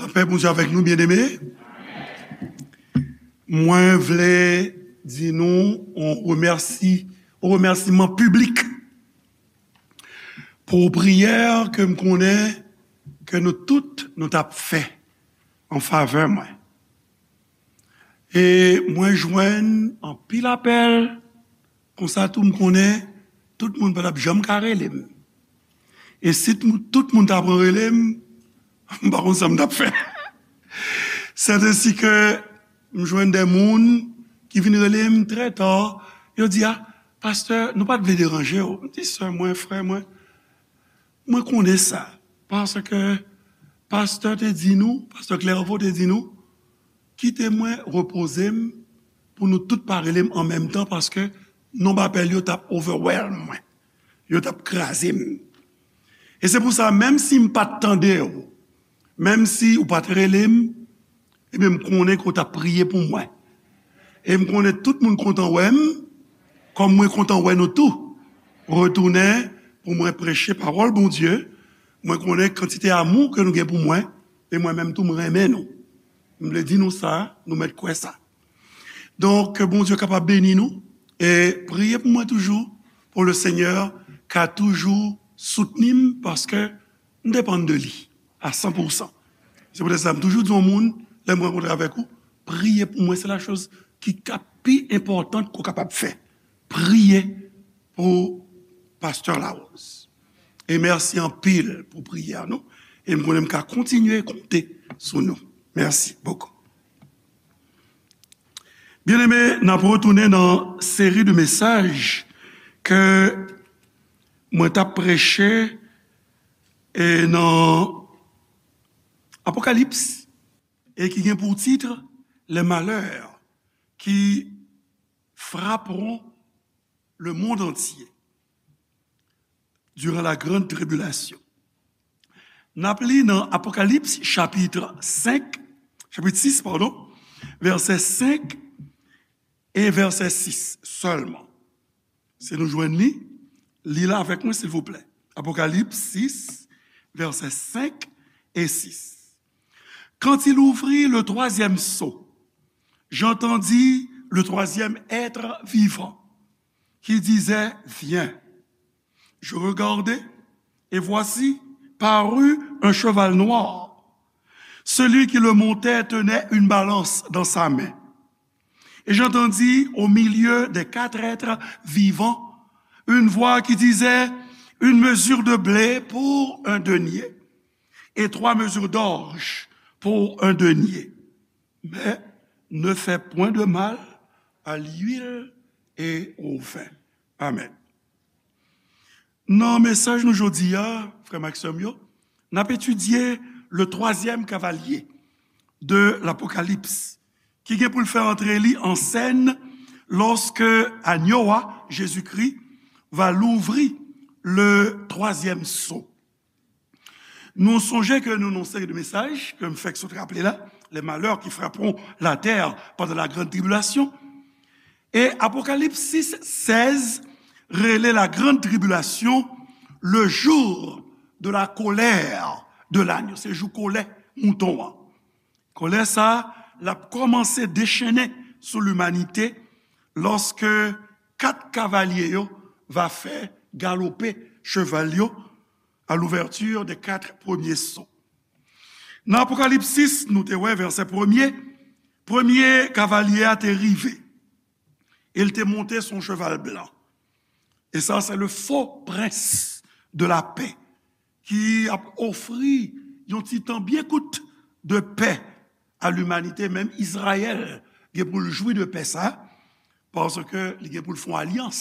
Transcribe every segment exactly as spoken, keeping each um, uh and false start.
Lapè Bondye avèk nou, byeneme. Mwen vle di nou yon remèsi, yon remèsiman piblik pou priyè ke m konnen ke nou tout nou t ap fè an favè mwen. E mwen jwenn anpil apèl, konsa tou m konnen tout moun pa t ap janm ka rele m. E si t-, tout moun ta pran rele m, m pa konn sa m t ap fè. Sèt ensi ke m jwenn de moun ki vin rele m trè ta, yo di, "A, pastè, nou pa t vle deranje w." M di, "Sè mwen, frè mwen, mwen konnen sa, paske pastè te di nou, pastè Clairvaux te di nou, kite mwen repoze m pou nou tout pa rele m an menm tan, paske nonb apèl yo t ap overwhelm mwen, yo t ap kraze m." E se pou sa, menm si m pa t tande w, menm si ou pa t rele m, ebyen, m konnen ke w t ap priye pou mwen. E m konnen tout moun kontan wè m, kòm mwen kontan wè nou tou retounen pou mwen preche pawòl Bondye. Mwen konnen kantite amou ke nou gen pou mwen, e mwen menm tou, m renmen nou. M vle di nou sa, nou mèt kwè sa. Donk, ke Bondye kapab beni nou, e priye pou mwen toujou, pou le Seigneur ka toujou soutni m, paske m depann de li a san pou san. Se poutèt sa, m toujou di yon moun, lè m rankontre avèk ou, priye pou mwen, se la choz ki ka pi enpòtan ke w kapab fè. Priye pou pastè Larose. E mèsi anpil pou priyè nou. E m konnen m ka kontinye konte sou nou. Mèsi bokou. Byeneme, n ap retounen nan seri de mesaj ke mwen t ap preche, e nan Apokalips, e ki gen pou tit Les malheurs qui frapperont le monde entier durant la grande tribulation. N ap li nan Apokalips chapit senk, chapit sis, padon, vèsè senk e vèsè sis sèlman. Si nou jwenn li, li l avèk mwen, silvouplè. Apokalips sis, vèsè senk e sis. Quand il ouvrit le troisième sceau, j'entendis le troisième être vivant qui disait, Viens. Je regardai, et voici, parut un cheval noir. Celui qui le montait tenait une balance dans sa main. Et j'entendis au milieu des quatre êtres vivants une voix qui disait, Une mesure de blé pour un denier, et trois mesures d'orge pour un denier. Mais ne fais point de mal à l'huile et au vin. Amen. Nan mesaj nou jodi a, frè m ak sè m yo, n ap etidye le troisième cavalier de l'Apocalypse, ki gen pou l fè antre li an sèn lorsque agneau a, Jésus-Christ, va l'ouvrir le troisième sceau. Nou sonje ke nou nan yon seri de mesaj ke m fèk sot raple la, les malheurs qui frapperont la terre pendant la grande tribulation. E Apokalips sis sèz rele la grande tribulation le jour de la colère de l'agneau. Se jou kòlè mouton an. Kòlè sa a, l ap kòmanse dechennen sou limanite lòske kat kavalye yo va fè galope cheval yo à l'ouverture des quatre premiers sceaux. Nan Apokalips sis, nou te wè vèsè premye, premye kavalye a te rive. E l te monte sou yon cheval blan. E sa, se le faux prince de la paix ki ap ofri yon ti tan byen kout de pè a limanite. Menm Izrayèl gen pou l jwi de pè sa, paske li gen pou l fè yon alyans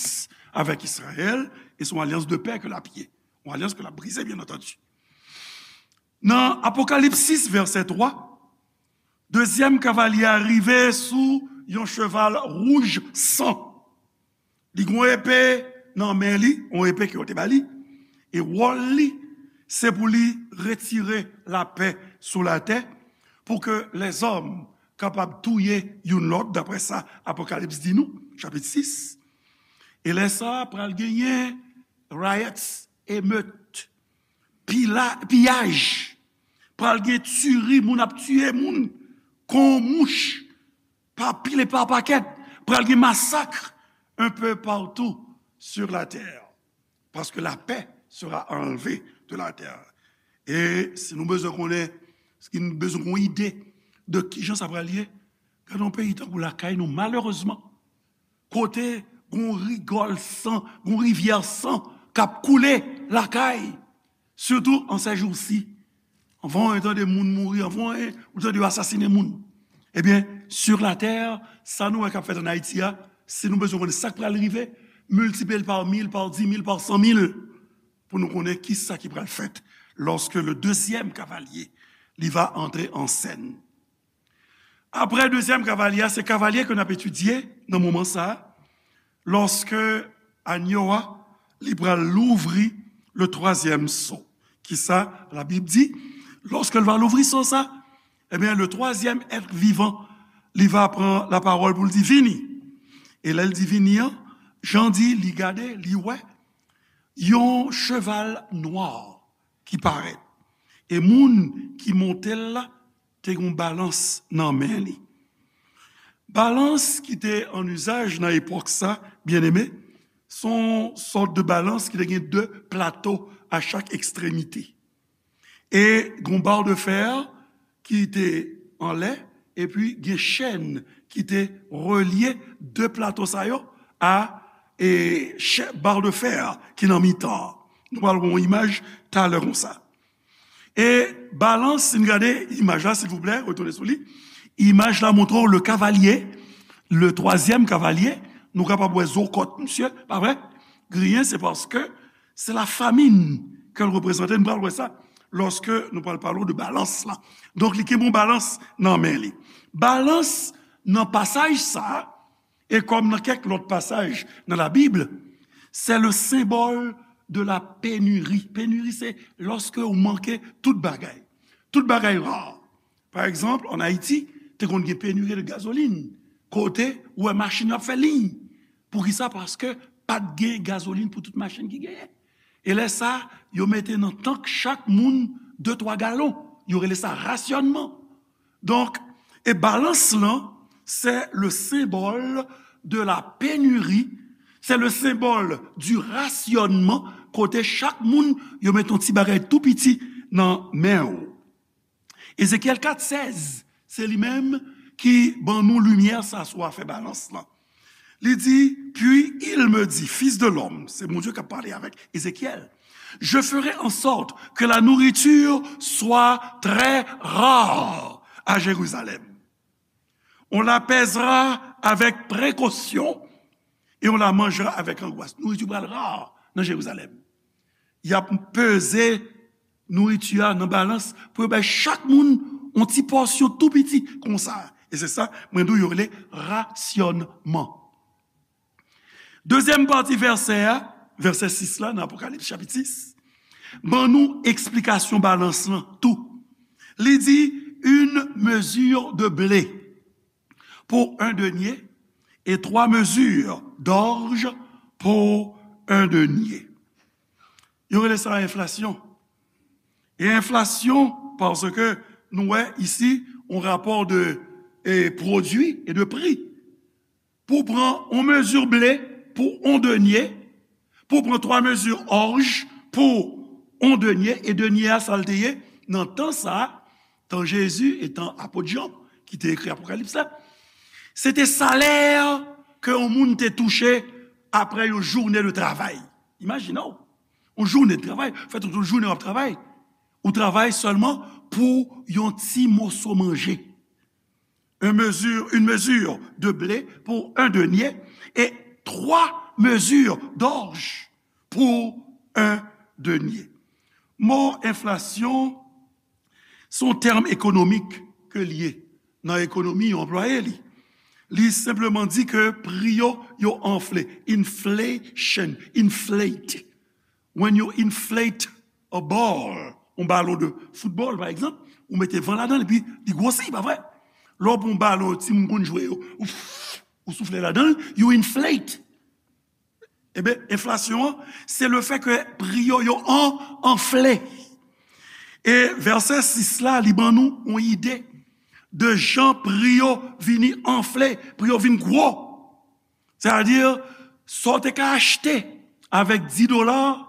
avèk Izrayèl, e se yon alyans de pè ke l ap ye. Yon alyans ke l ap brize, byen antandi. Nan Apokalips sis, vèsè twa, dezyèm kavalye a rive sou yon cheval wouj san. Li gen yon epe nan men li, yon epe ke yo te ba li, e wòl li, se pou li retire lapè sou latè, pou ke lèzòm kapab touye youn lòt, daprè sa Apokalips di nou, chapit sis. E lè sa a, pral genyen riots, emeut, pila-, piyaj, pral gen tiri, moun ap tiye moun kon mouch, pa pil e pa pakèt, pral gen masak un peu partout sur la terre, parce que la paix sera enlevée de la terre. E si nou bezwen konnen, si nou bezwen yon ide de kijan sa pral ye, gade yon peyi tankou lakay nou, malerezman, kote gon rigòl san, gon rivyè san k ap koule lakay, sitou an sèjousi. Anvan w tande moun mouri, anvan w tande yo asasinen moun. Ebyen, sur la terre, sa nou wè k ap fèt ann Ayiti a, si nou bezwen konnen sa k pral rive, miltipliye l pa mil, pa di mil, pa san mil, pou nou konnen ki sa ki pral fèt lorsque le deuxième cavalier, li va entrer en scène. Apre dezyèm kavalye a, se kavalye ke n ap etidye nan moman sa a, lòske anyo a, li pral louvri le twazyèm so. Kisa Labib di? Lòske l va louvri so sa, ebyen, le twazyèm èt vivan, li va pran lapawòl pou l di, "Vini." E lè l di, "Vini" an, Jan di, li gade, li wè yon cheval nwa ki parèt. E moun ki monte l la te gen yon balans nan men li. Balans ki te an izaj nan epòk sa, byeneme, se yon sòt de balans ki te gen de plato a chak ekstremite. E gen yon bar de fè ki te anlè, epi gen chèn ki te relye de plato sa yo a e chè, bar de fè ki nan mitan an. Nou pral wè yon imaj talè konsa. E balans, si n gade imaj la, silvouplè, retounen sou li. Imaj la montre w le kavalye, le twazyèm kavalye. Nou kapab wè zo kòt misye, pa vre? Griyen, se paske se la famin ke l reprezante. Nou pral wè sa lòske nou pral pale w de balans la. Donk, li gen yon balans nan men li. Balans nan pasaj sa a, e kòm nan kèk lòt pasaj nan Labib, c'est le symbole de la pénurie. Pénurie, se lòske ou manke tout bagay. Tout bagay ra. Pa egzanp, ann Ayiti, te konn gen pénurie de gazoline, kote ou wè machin yo ap fè liy. Poukisa? Paske pa t gen gazolin pou tout machin ki genyen. E lè sa, yo mete nan tank chak moun de twa galon. Yo rele sa rasyònman. Donk, e balans lan, c'est le symbole de la pénurie, c'est le symbole du rationnement, kote chak moun, yo met yon ti bagay tou piti nan men w. Ezekyèl kat sèz, se li menm ki ban nou limyè sa sou afè balans lan. Li di, "Puis il me dit, Fils de l'homme," se Bondye k ap pale avèk Ezekyèl, "Je ferai en sorte que la nourriture soit très rare à Jérusalem. On la pèsera avec précaution et on la mangera avec angoisse." Nouriti pral ra nan Jerizalèm. Y ap peze nouriti a nan balans pou yo bay chak moun yon ti pòsyon tou piti konsa. E se sa, mwen di w, yo rele rasyònman. Dezyèm pati vèsè a, vèsè sis la, nan Apokalips chapit sis, ban nou eksplikasyon balans lan tou. Li di, une mesure de blé pour un denier et trois mesures d'orge pour un denier. Yo rele sa enflasyon. E enflasyon, paske nou wè isi, yon rapò de, e, pwodui e de pri. Pou w pran yon mezi ble pou yon denye, pou w pran twa mezi òj pou yon denye, e denye a, sa l te ye? Nan tan sa a, tan Jezi e tan apot Jan, ki te ekri Apokalips la, se te salè ke yon moun te touche apre yon jounen de travay. Imajine w, yon jounen de travay, fè tout yon jounen w ap travay. Ou travay sèlman pou yon ti moso manje. Une mesure, une mesure de blé pour un denier et trois mesures d'orge pour un denier. Mo enflasyon, se yon tèm ekonomik ke l ye. Nan ekonomi, yo anplwaye li. Li senpleman di ke pri yo, yo anfle. Inflation, inflate. When you inflate a ball, yon balon de foutbòl, pa egzanp, ou mete van ladan l, epi li gwosi, pa vre? Lè w pran yon balon, timoun konn jwe yo, ou, ou soufle ladan l, you inflate. Ebyen, enflasyon an, se le fè ke pri yo, yo an, anfle. E vèsè sis la, li ban nou yon ide de jan pri yo vini anfle, pri yo vin gwo. Sètadi, sa w te ka achte avèk dis dola,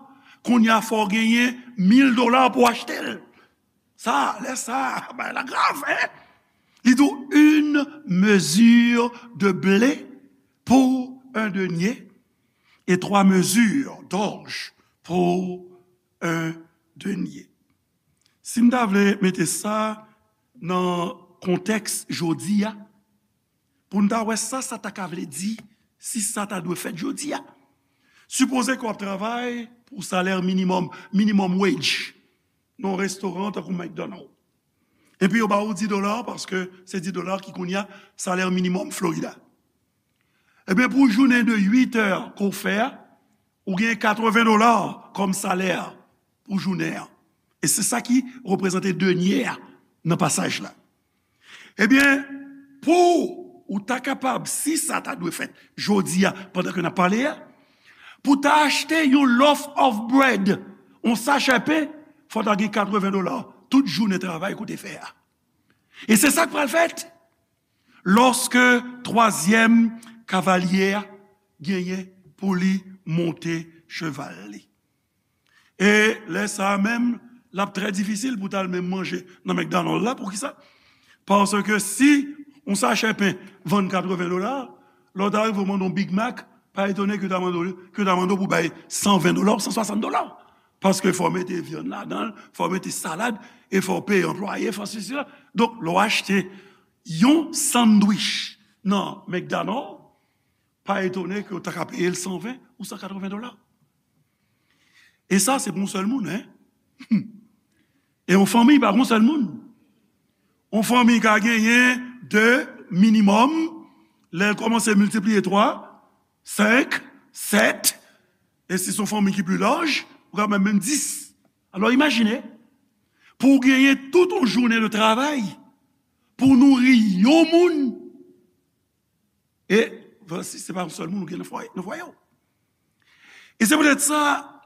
kounye a fò w genyen mil dola pou w achte l. Sa, lè sa, bagay la grav, en? Li di w, une mesure de blé pour un denier et trois mesures d'orge pour un denier. Si m ta vle mete sa nan kontèks jodi a, pou n ta wè sa sa ta ka vle di, si sa ta dwe fèt jodi a. Sipoze ke w ap travay pou salè minimòm, minimum wage, nan yon restoran tankou McDonald. Epi yo ba ou dis dola, paske se dis dola ki kounye a salè minimòm Florida. Ebyen, pou jounen de uit è ke w fè a, ou gen katreven dola kòm salè pou jounen an. E se sa ki reprezante dènye a nan pasaj la. Ebyen, pou ou ta kapab, si sa ta dwe fèt jodi a, pandan ke n ap pale a, pou ta achte yon loaf of bread, yon sachè pen, fò ta gen katreven dola tout jounen travay ke w te fè a. E se sa k pral fèt lòske twazyèm kavalye a genyen pou li monte cheval li. E lè sa a menm, l ap trè difisil pou ta al menm manje nan McDonald la. Poukisa? Paske si yon sachè pen vann katreven dola, lè w ta rive w mande yon Big Mac, pa etone ke yo ta mande w, ke yo ta mande w pou bay san ven dola ou san swasant dola. Paske fò w mete vyann ladan l, fò w mete salad, e fò w peye anplwaye, fò sesi, sela. Donk, lè w achte yon sandwich nan McDonald, pa etone ke w ta ka peye l san ven ou san katreven dola. E sa, se pou yon sèl moun, en. E yon fanmi, pa pou yon sèl moun. Yon fanmi ka genyen de minimòm, lè l kòmanse miltipliye twa, senk, sèt, e si se yon fanmi ki pli laj, ou ka menm, menm dis. Alò, imajine, pou w genyen tout yon jounen de travay, pou w nouri yon moun, e, si se pa yon sèl moun ou gen nan fwaye, nan fwaye w. E se poutèt sa,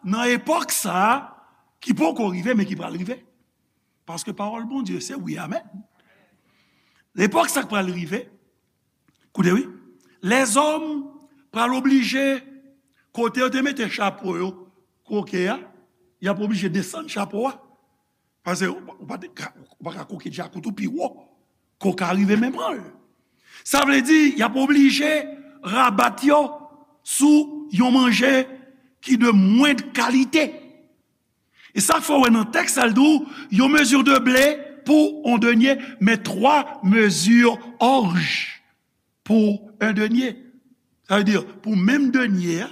nan epòk sa a, ki poko rive, men ki pral rive. Paske pawòl Bondye, se wi, amèn. Epòk sa k pral rive, koute wi, lèzòm pral oblije, kote yo te mete chapo yo, koke a, y ap oblije desann chapo a. Paske ou pa, ou pa te ka, ou pa ka koke djakout ou pi wo, ke w ka rive men pran l. Sa vle di, y ap oblije rabat yo sou yon manje ki de mwend kalite. E sa fè w wè nan tèks sa, l di w, yon mezi de ble pou yon dènye, men twa mezi òj pou yon dènye. Sa vle di, pou menm dènye a,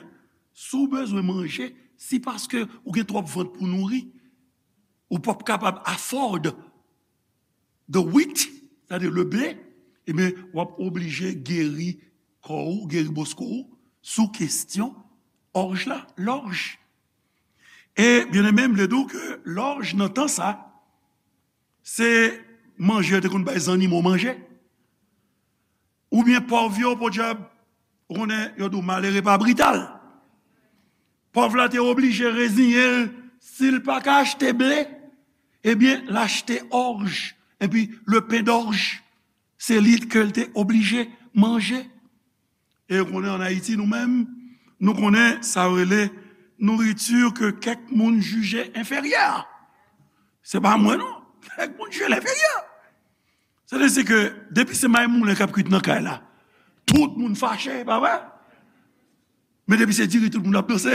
si w bezwen manje, si paske ou gen twòp vant pou nouri, ou p ap kapab afford the wheat, sètadi le blé, ebyen, w ap oblije geri kò w, geri bosko w, sou kesyon òj la, lòj. E, byeneme, m vle di w ke lòj nan tan sa, se manje yo te konn bay zannimo manje. Oubyen pòv yo, podyab, ou konnen, yo di w malere pa brital. Pòv la te oblije reziyen l, si l pa ka achte ble, ebyen, l achte òj, epi le pen d'orge, se li ke l te oblije manje. E ou konnen, ann Ayiti, nou menm, nou konnen sa yo rele nouriti ke kèk moun jije enferyè. Se pa mwen, non. Kèk moun jije l enferyè. Sètadi ke depi se mayi moulen k ap kwit nan kay la, tout moun fache, pa vre? Men depi se diri, tout moun ap danse.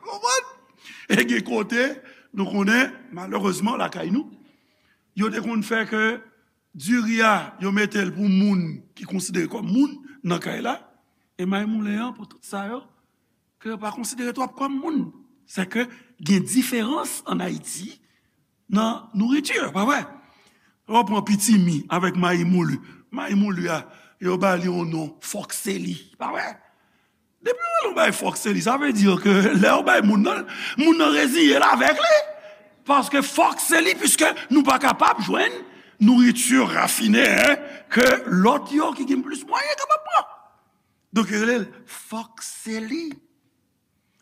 Konprann? E gen kote, nou konnen, malerezman, lakay nou, yo te konn fè ke diri a, yo mete l pou moun ki konsidere kòm moun nan kay la, e mayi moulen an pou tout sa yo, ke yo pa konsidere twòp kòm moun. Sèke gen diferans ann Ayiti nan nouriti, pa vre? Lè w pran pitimi avèk mayi mouli. Mayi mouli a, yo ba li yon non, fòkseli, pa vre? Depi yo rele yon bagay fòkseli, sa vle di ke lè yo bay moun nan, moun nan reziye l avèk li. Paske fòkseli, piske nou pa kapab jwenn nouriti rafine, en, ke lòt yo ki gen plis mwayen kapab pran. Donk, yo rele l fòkseli.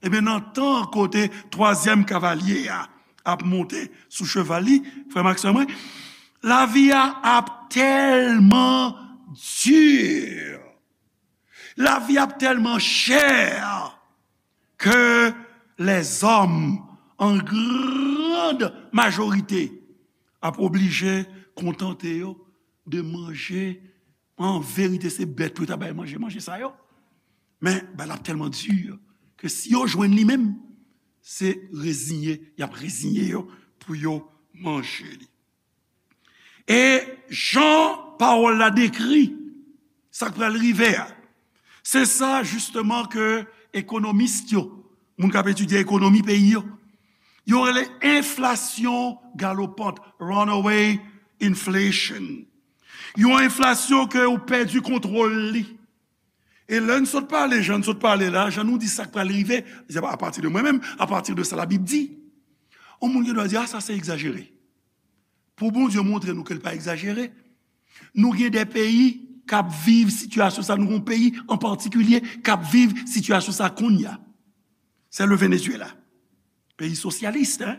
Ebyen, nan tan kote twazyèm kavalye a, ap monte sou cheval li, frè m ak sè mwen, lavi a ap tèlman di. Lavi ap tèlman chè ke lèzòm, an grand majorite, ap oblije kontante yo de manje. An verite, se bèt pou yo ta bay manje, manje sa yo. Men, bagay la ap tèlman di ke si yo jwenn li menm, se reziye, y ap reziye yo pou yo manje li. E jan pawòl la dekri sa k pral rive a, se sa jisteman ke ekonomis yo, moun k ap etidye ekonomi peyi yo, yo rele enflasyon galopant, runaway inflation. Yon enflasyon ke ou pèdi kontwòl li. E lè n sot pale, jan n sot pale la, jan nou di sa k pral rive, se pa apati de mwen menm, apati de sa Labib di. Yon moun gen dwa di, a, sa se egzajere. Pou Bondye montre nou ke l pa egzajere, nou gen de peyi k ap viv sitiyasyon sa, nou gen yon peyi an patikilye k ap viv sitiyasyon sa kounye a. Se le Venezuela. Peyi sosyalis, en?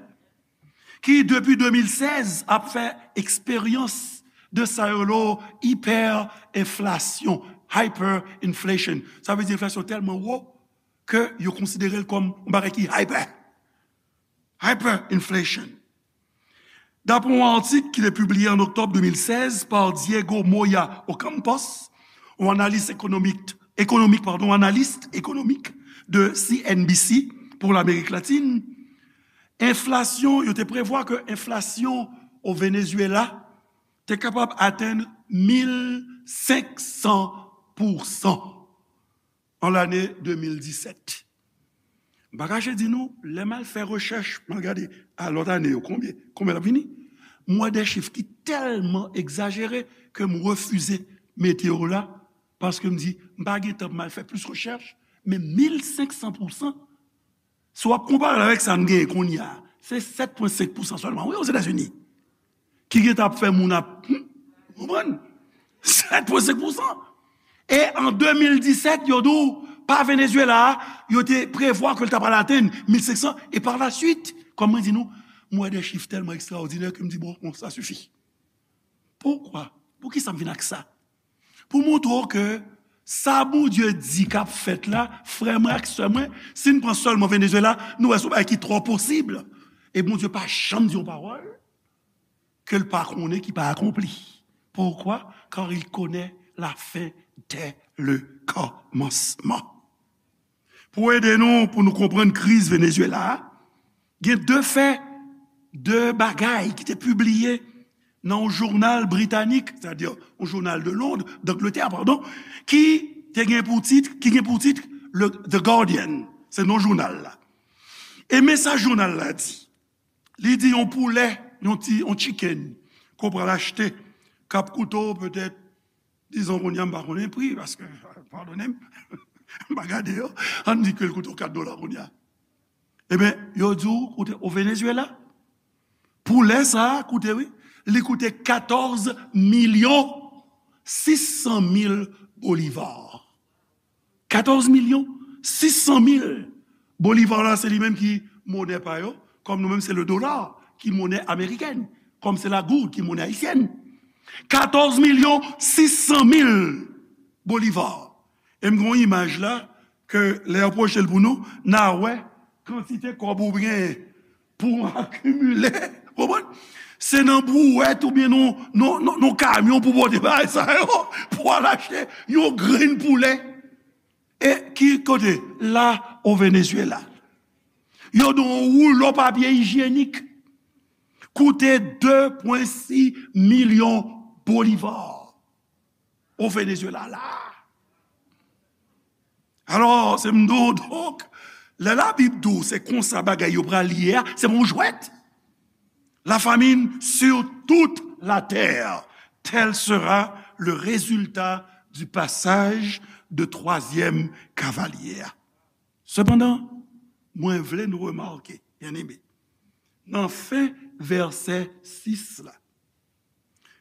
Ki depi de mil sèz ap fè eksperyans de sa yo rele hyperinflation, hyperinflation. Sa vle di enflasyon tèlman wo ke yo konsidere l kòm yon bagay ki hyper. Hyperinflation. Dapre yon atik ki te pibliye an oktòb de mil sèz pa Diego Moya Ocampos, yon analis ekonomik, ekonomik, padon, analis ekonomik de C N B C pou Lamerik Latin, enflasyon, yo te prevwa ke enflasyon o Venezuela te kapab atenn mil senk san pousan an lane de mil disèt. M pa kache di nou, lè m al fè rechèch, m al gade a lòt ane yo, konbyen, konbyen l ap vini, m wè de chif ki tèlman egzajere ke m refize mete yo la, paske m di, m pa gen tan pou m al fè plis rechèch, men mil senk san pousan, si w ap konpare l avèk sa n genyen kounye a, se sèt pwen senk pousan sèlman, wi, Ozetazini, ki gentan ap fè moun ap, hmm, konprann? Sèt pwen senk pousan. E an de mil disèt, yo di w, pa Venezuela a, yo te prevwa ke l ta pral atenn mil senk san, e par la suite, kòm mwen di nou, m wè de chif tèlman ekstraòdinè ke m di, bon, bon, sa sifi. Poukwa? Poukisa m vin ak sa? Pou montre w ke sa Bondye di k ap fèt la, frè mwen ak sè mwen, si n pran sèlman Venezuela, nou wè se yon bagay ki twò posib. E Bondye pa janm di yon pawòl ke l pa konnen ki pa akonpli. Poukwa? Car il connaît la fin dès le commencement. Pou ede nou, pou nou konprann kriz Venezuela a, gen de fè, de bagay ki te pibliye nan yon jounal britanik, sètadi yon jounal de Londres, d'Angleterre, pardon, ki te gen pou tit, ki gen pou tit le The Guardian, se non jounal la. E men sa jounal la di. Li di yon poulè, yon ti, yon chicken, ke w pral achte, k ap koute w petèt, dizon kounye a, m pa konnen pri, paske, padone m, m pa gade yo, ann di ke l koute w kat dola kounye a. Ebyen, yo di w koute, o Venezuela, poulè sa a koute, wi, li koute katòz milyon sis san mil bolivar. Katòz milyon sis san mil bolivar la, se li menm ki monè pa yo, kòm nou menm se le dola ki monè amerikèn, kòm se la goud ki monè ayisyèn. Katòz milyon sis san mil bolivar. E m gen yon imaj la, ke lè yo pwoche l pou nou, n a wè kantite kòb ou gen pou w akimile. Konprann? Se nan brouwèt oubyen nan, nan, nan, nan kamyon pou pote bagay sa yo, pou al achte yon grenn poulè. E ki kote? La, o Venezuela. Yo di w yon woulo papye ijyenik koute de pwen sis milyon bolivar. O Venezuela la. Alò, se m di w, donk, lè Labib di w se konsa bagay yo pral ye a, se pa yon jwèt. La famine sur toute la terre, tel sera le résultat du passage de troisième cavalier. Sepandan, mwen vle nou remake, byeneme, nan fen vèsè sis la,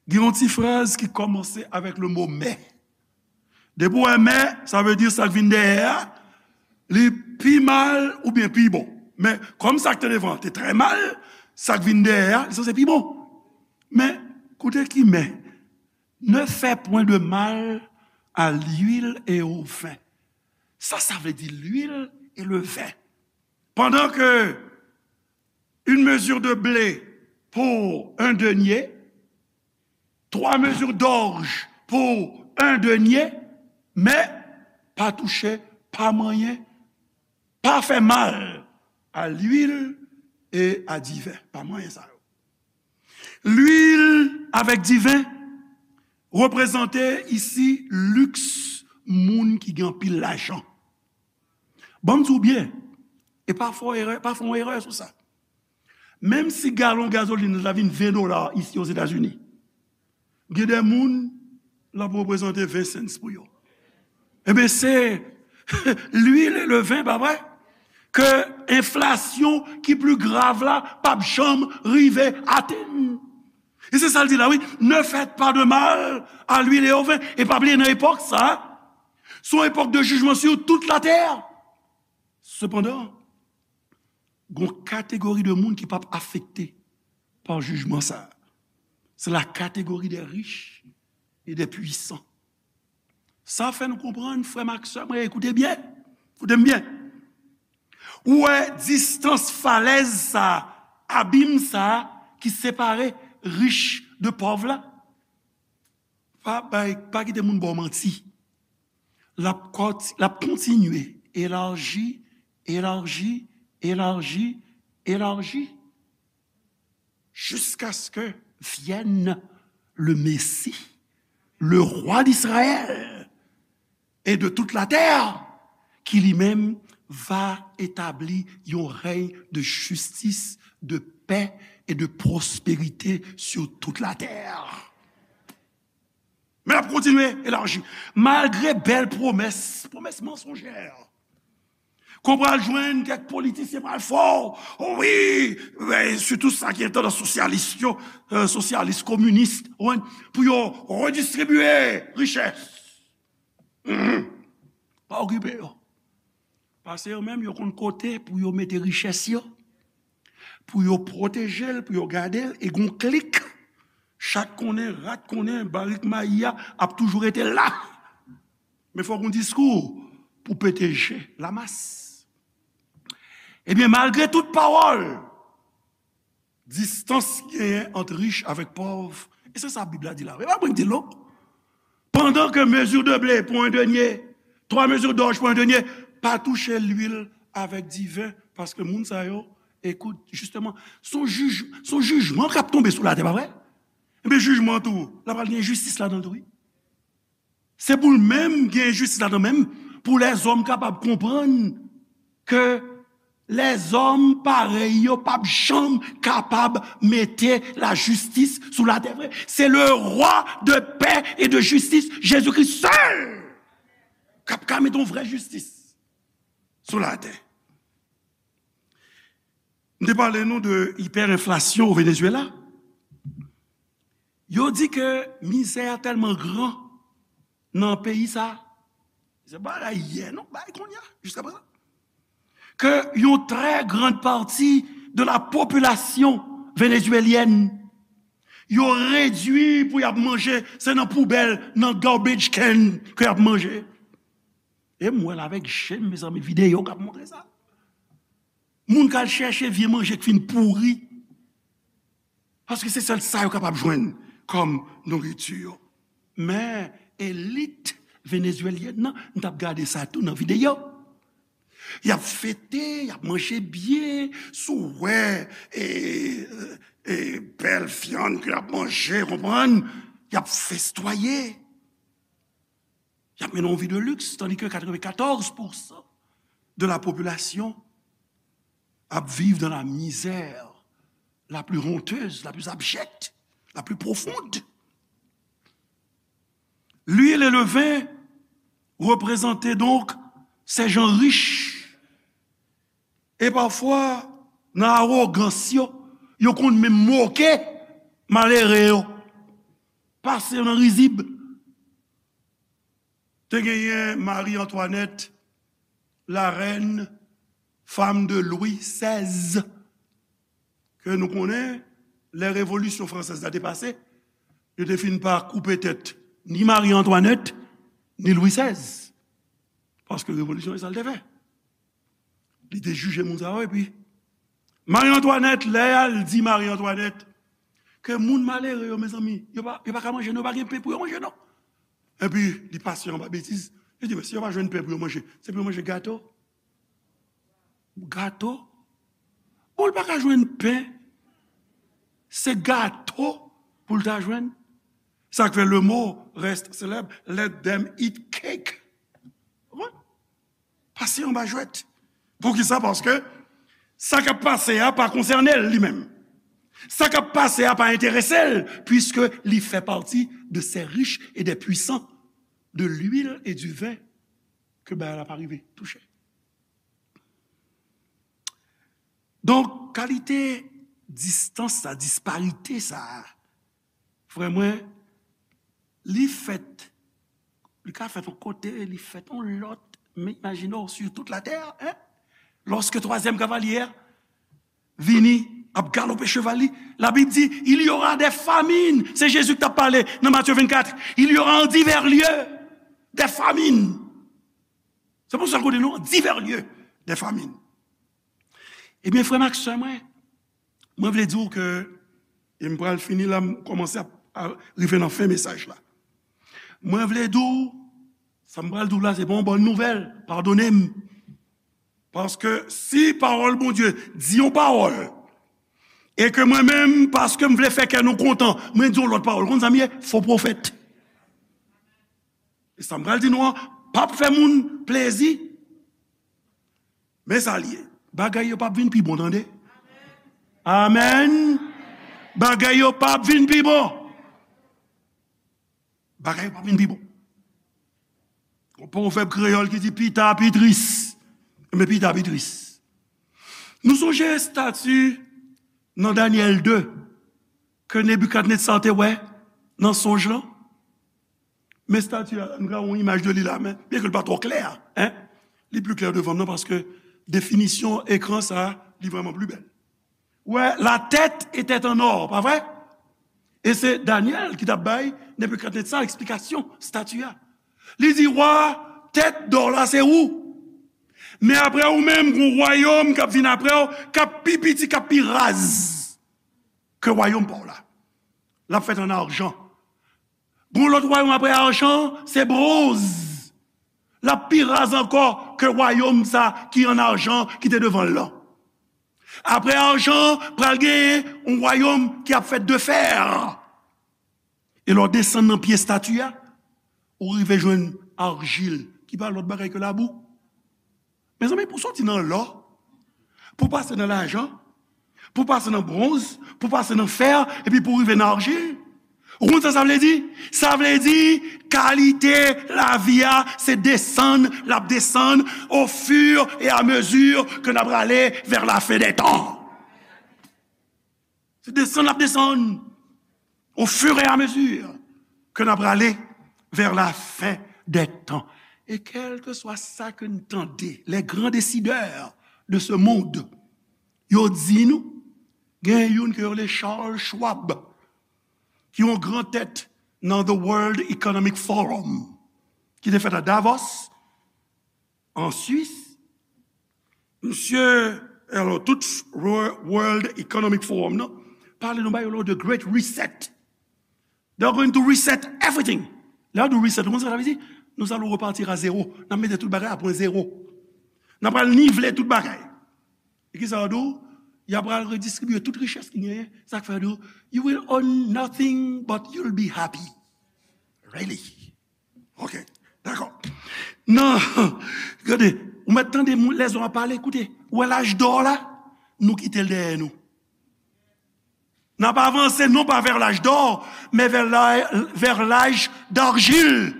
gen yon ti fraz ki kòmanse avèk le mo mais. Depi w wè mais, sa vle di sa k vin dèyè a, li pi mal oubyen pi bon. Men, kòm sa k te devan an te trè mal, Sa k vin dèyè a, li sanse pi bon. Men, koute ki men, ne fais point de mal à l'huile et au vin. Sa, sa vle di l'huile et le vin. Pendant que une mesure de blé pour un denier, trois mesures d'orge pour un denier, mais pa touche, pa manyen, pa fè mal à l'huile et à divin. Pa manyen sa yo. Lwil avèk diven reprezante isi liks moun ki gen anpil lajan. Ban m di w byen, e pa fè w erè, pa fè w erè sou sa. Menm si galon gazolin la vin ven dola isi Ozetazini, gen de moun l ap reprezante ven cents pou yo. Ebyen, se lwil e le ven, pa vre? Ke enflasyon ki pli grav la p ap janm rive atenn. E se sa l di la, wi. Ne faites pas de mal à l'huile et au vin. E pa bliye, nan epòk sa a, se yon epòk de jijman sur toute la terre. Sepandan, gon kategori de moun ki p ap afekte pa jijman sa a. C'est la catégorie des riches et des puissants. Sa fè nou konprann, frè m ak sè mwen, ekoute byen, koute m byen. Ou wè distans falèz sa, abim sa ki separe rich de pòv la? Pa bay, pa kite moun ba w manti. L ap kont-, l ap kontinye elaji, elaji, elaji, elaji, jusqu'à ce que vienne le Messie, le roi d'Israël et de toute la terre, qui lui-même va établir un règne de justice, de paix et de prospérité sur toute la terre. Men l ap kontinye elaji. Malgre bèl pwomès, pwomès mansonjè, ke w pral jwenn kèk politisyen pral fè w, wi, men sitou sa ki gen tandans sosyalis yo, euh, sosyalis, kominis, ou konprann, pou yo redistribye richès. Mhm. Pa okipe yo. Paske yo menm, yo konn kote pou yo mete richès yo, pou yo pwoteje l, pou yo gade l, e gon klik, chat konnen, rat konnen, barik mayi a ap toujou rete la. Men fòk gon diskou pou pete je lamas. Ebyen, malgre tout pawòl, distans ki genyen ant rich avèk pòv, e se sa Bib la di la. E pa mwen ki di l, non. Pendant que mesure de blé pour un denier, trois mesures d'orge pour un denier, pa touche lwil avèk diven, paske moun sa yo, ekout, jisteman, se yon jij-, se yon jijman k ap tonbe sou latè, pa vre? Ebyen, jijman tou, la pral gen enjistis ladan l tou, wi. Se pou l menm gen enjistis ladan menm, pou lèzòm kapab konprann ke lèzòm parèy yo p ap janm kapab mete lajistis sou latè vre. C'est le roi de paix et de justice, Jésus-Christ seul, k ap ka mete yon vrè jistis sou latè. M te pale nou de ipèrenflasyon o Venezuela. Yo di ke mizè a tèlman gran nan peyi sa, se pa bagay yè non, bagay kounye a, jiskaprezan, ke yon trè grann pati de la popilasyon venezuelyèn, yo redui pou y ap manje, se nan poubèl, nan garbage can ke y ap manje. E m wè l avèk je m, mezanmi, videyo k ap montre sa. Moun k al chèche vye manje k fin pouri. Paske se sèl sa yo kapab jwenn kòm nouriti. Men elit venezuelyèn nan, m t ap gade sa tou nan videyo. Y ap fete, y ap manje byen, si w wè, e, e, bèl vyann ke y ap manje, konprann, y ap festwaye. Y ap mennen yon vi de luxe, tandis que quatre-vingt-quatorze pour cent de la population ap viv dans la misère la plus honteuse, la plus abjecte, la plus profonde. L'huile et le vin représentaient donc ces gens riches. E pafwa, nan awogans yo, yo konn menm moke malere yo, pase yo nan rizib. Te genyen Marie Antoinette, la reine, femme de Louis seize, ke nou konnen, lè revolisyon fransèz la te pase, yo te fin pa koupe tèt ni Mari Antwanèt, ni Lwi sèz. Paske revolisyon, e sa l te fè. Li te jije moun sa yo, epi Mari Antwanèt, lè y al di Mari Antwanèt ke moun malere yo, mezanmi, yo pa, yo pa ka manje, non, yo pa gen pen pou yo manje, non. Epi, li pase anba betiz, li di, men si yo pa jwenn pen pou yo manje, se pou yo manje gato. Gato? Bon, l pa ka jwenn pen. Se gato pou l ta jwenn. Sa k fè le mot reste célèbre, let them eat cake. Konprann? Pase anba jwèt. Poukisa? Paske sa k ap pase a pa konsène l li menm. Sa k ap pase a pa enterese l, puiske li fè pati de ces riches et des puissants, de l'huile et du vin, ke bagay la pa rive touche. Donk, kalite distans sa, disparite sa, frè mwen, li fèt, li ka fèt yon kote, li fèt yon lòt, men imajine w, sur toute la terre, hein? Lorsque troisième cavalier vini, ap galope cheval li, la Bib di, il y aura des famines. Se Jezi ki t ap pale nan Matye vennkat. Il y aura en divers lieux des famines. Se pou sa l kote nou, divers lieux des famines. Ebyen, frè m ak sè mwen, mwen vle di w ke, e m pral fini la, m kòmanse ap, a, rive nan fen mesaj la. Mwen vle di w, sa m pral di w la, se pa yon bòn nouvèl, padone m. Paske si pawòl Bondye di yon pawòl, e ke mwen menm, paske m vle fè kè nou kontan, mwen di yon lòt pawòl, konn sa m ye? Fo pwofèt. E sa m pral di nou an, p ap fè moun plezi. Men sa l ye. Bagay yo p ap vin pi bon, tande. Amèn. Bagay yo p ap vin pi bon. Bagay yo p ap vin pi bon. Gon pwovèb kreyòl ki di pita pi tris. Men pita pi tris. Nou sonje estati nan Danyèl de ke Nebikadnetsa te wè nan sonj lan? Men estati a, nou ka wè yon imaj de li la, men byen ke l pa twò klè, en, li pli klè devan m nan, paske definisyon ekran sa a, li vrèman pli bèl. Wè, la tête était en or, pa vre? E se Danyèl ki t ap bay Nebikadnetsa eksplikasyon estati a. Li di, wa, tèt dò la se ou. Men apre ou menm, gon wayòm k ap vin apre w, k ap pi piti, k ap pi raz ke wayòm pa w la. L ap fèt an ajan. Gon lòt wayòm apre ajan, se bwonz. L ap pi raz ankò ke wayòm sa ki an ajan ki te devan l lan. Apre ajan, pral gen yon wayòm ki ap fèt de fè. E lè w desann nan pye estati a, ou rive jwenn arjil, ki pa lòt bagay ke labou. Mezanmi, pou soti nan lò, pou pase nan lajan, pou pase nan bwonz, pou pase nan fè, epi pou rive nan arjil. Ou konn sa sa vle di? Sa vle di, kalite lavi a, se desann, l ap desann, au fur et à mesure que n ap prale vers la fin des temps. Se desann l ap desann, au fur et à mesure que n ap prale vers la fin des temps. E kèlkeswa sa ke n tande, les grands décideurs de ce monde, yo di nou, gen youn ke yo rele Charles Schwab, ki yon gran tèt nan The World Economic Forum, ki te fèt a Davos, an Swis. Misye, alò, tout World Economic Forum nan, pale nou ba yo lò de Great Reset. They're going to reset everything. Lè yo di reset, ou konn sa sa vle di? Nous allons repartir à zéro. N ap mete tout bagay a pwen zewo. N ap al nivle tout bagay. E ki sa yo di w? Y ap al redistribye tout richès ki genyen. Sa k fè yo di w, you will own nothing but you'll be happy. Really? Ok, dakò. Non, gade, ou mèt tande moun, lèzòm ap pale, koute, ou wè laj dò la, nou kite l dèyè nou. N ap avanse non pa vers l'âge d'or, men vers la, vers l'âge d'argile,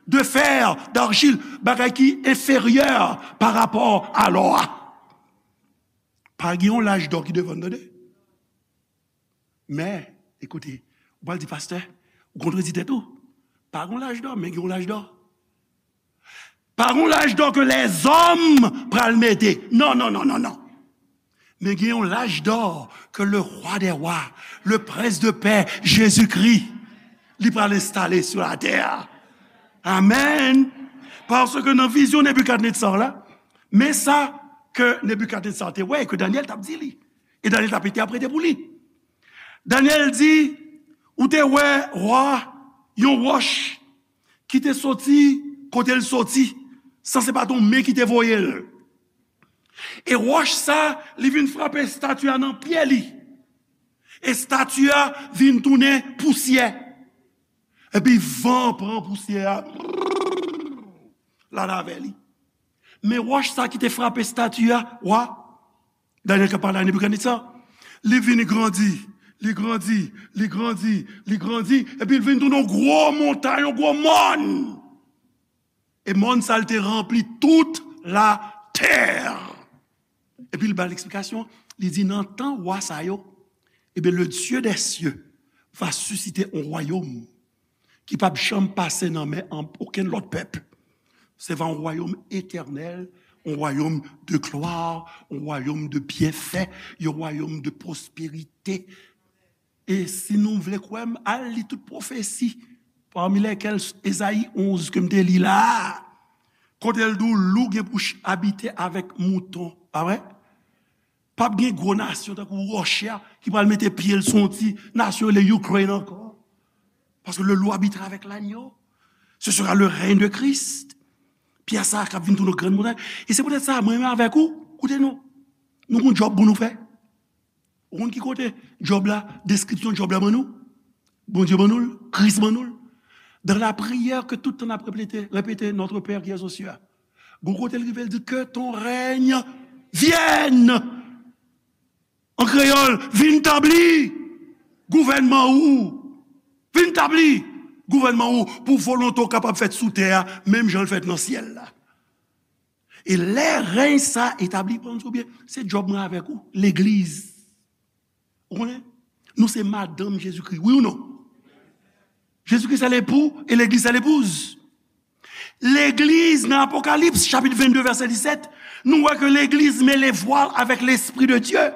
de fer, d'argile, bagay ki enferyè pa rapò a lò a. Pa gen yon laj dò ki devan n, tande. Men, ekoute, ou pral di, pastè, ou kontredi tèt ou. Pa gen yon laj dò, men gen yon laj dò. Pa gen yon laj dò ke lèzòm pral mete. Non, non, non, non, non. Men gen yon laj dò ke le rwa dè wa, le prens de pè, Jezikri, li pral enstale sou latè. Amèn. Paske nan vizyon Nebikadnetza la, men sa ke Nebikadnetza te wè e ke Danyèl t ap di li. E Danyèl t ap entèprete pou li. Danyèl di, ou te wè wa, yon wòch ki te soti kote l soti, san se pa t yon men ki te voye l. E wòch sa, li vin frape estati a nan pye li. Estati a vin tounen pousyè. Epi van pran pousyè a, l al avè li. Men wòch sa ki te frape estati a, wa, Danyèl k ap pale a Nebikadnetza, li vin grandi, li grandi, li grandi, li grandi, epi l vin tounen yon gwo montay, yon gwo mòn. E mòn sa l te ranpli tout latè. Epi l ba l eksplikasyon, li di, nan tan wa sa yo, ebyen, le Dieu des cieux va susciter un royaume ki p ap janm pase nan men an okenn lòt pèp. Se va yon wayòm etènèl, yon wayòm de glwa, yon wayòm de byenfè, yon wayòm de pwosperite. E si nou vle kwè m, al li tout pwofesi, pami lèkèl Ezayi onz ke m te li la a, kote l di w lou gen pou ch- abite avèk mouton, pa vre? P ap gen gwo nasyon tankou Russia ki pral mete pye l sou yon ti nasyon rele Ukraine ankò. Parce que le loup habitera avec l'agneau. Ce sera le règne de Christ. Pyè sa k ap vin tounen yon grann montay. E se poutèt sa, mwen menm avèk ou, koute nou. Nou gon djòb pou nou fè. Ou konn ki kote djòb la, deskripsyon djòb la ban nou? Bondye ban nou l, Kris ban nou l. Dans la prière que tout tan n ap repete, repete, Notre Père qui es aux cieux. Gon kote l rive, l di, que ton règne vienne. An kreyòl, vin tabli gouvènman ou. Vin tabli gouvènman ou pou volonte w kapab fèt sou tè a, menm jan l fèt nan syèl la. E lè rèy sa etabli, pa konn si w byen, se djòb mwen avèk ou, legliz. Ou konnen? Nou se madanm Jezikri, wi ou non? Jezikri se lepou e legliz se lepouz. Legliz, nan Apokalips, chapit vennde, vèsè disèt, nou wè ke legliz met le voile avec l'Esprit de Dieu.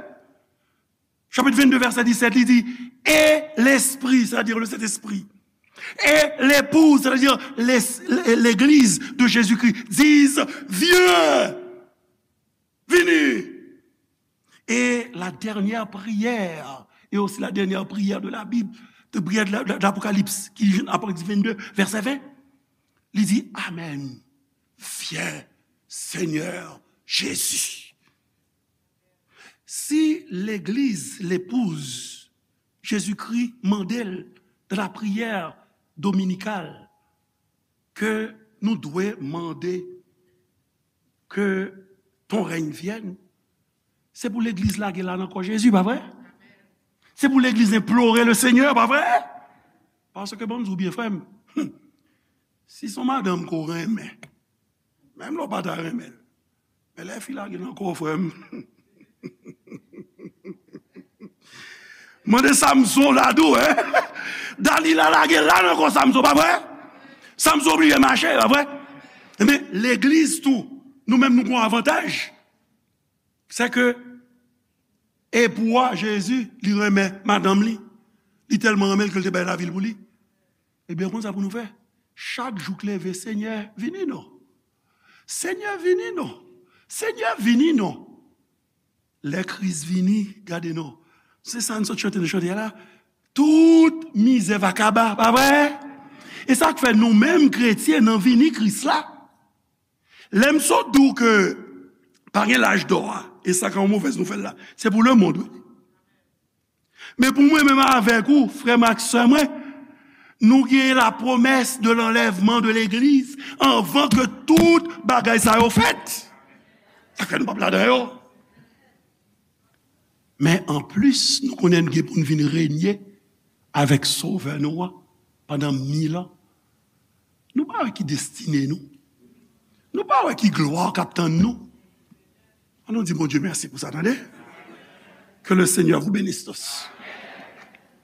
Chapit vennde, vèsè disèt, li di, et l'Esprit, c'est-à-dire le Saint-Esprit, et l'épouse, c'est-à-dire les- l'église de Jésus-Christ, disent, viens, vini. Et la dernière prière, et aussi la dernière prière de la Bible, de prière de la- de l'Apocalypse, ki Apokalips vennde, vèsè ven, li di, amen, viens, Seigneur Jésus. Si legliz, lepouz, Jezikri mande l nan lapriyè dominikal ke nou dwe mande ke ton règne vienne, se pou legliz lage l la nan kò Jezi, pa vre? Se pou legliz enplore le Senyè, pa vre? Paske ban m di w byen, frè m, si se yon madanm ke w renmen, menm lè w pa ta renmen l, men lè fi lage nan kò w, frè m, mande Samson la tou, en. Dalila lage l la nan kò Samson, pa vre? Samson oblije mache, pa vre? Ebyen, legliz tou, nou menm nou gen yon avantaj. Se ke epou a, Jezi, li renmen madanm li. Li tèlman renmen l ke l te bay lavi l pou li. Ebyen, konn sa pou nou fè. Chak jou k leve, Senyè, vini non. Senyè, vini non. Senyè, vini non. Lè Kris vini, gade non. Se sa n sot chante nan chante a la. Tout mizè va kaba, pa vre? E sa k fè nou menm kretyen nan vini Kris la, lè m sot di w ke pa gen laj dò a, e sa ka yon movèz nouvèl la, se pou lemonn, wi. Men pou mwen menm avèk ou, frè m ak sè mwen, nou gen la promesse de l'enlèvement de l'église anvan ke tout bagay sa yo fèt. Sa fè nou p ap ladan yo. Men anplis, nou konnen n gen pou n vin renye avèk Sovè nou an pandan mil an. Nou pa wè ki destine nou. Nou pa wè ki glwa k ap tann nou. Ann nou di Bondye mèsi pou sa, tande. Que le Seigneur vous bénisse tous.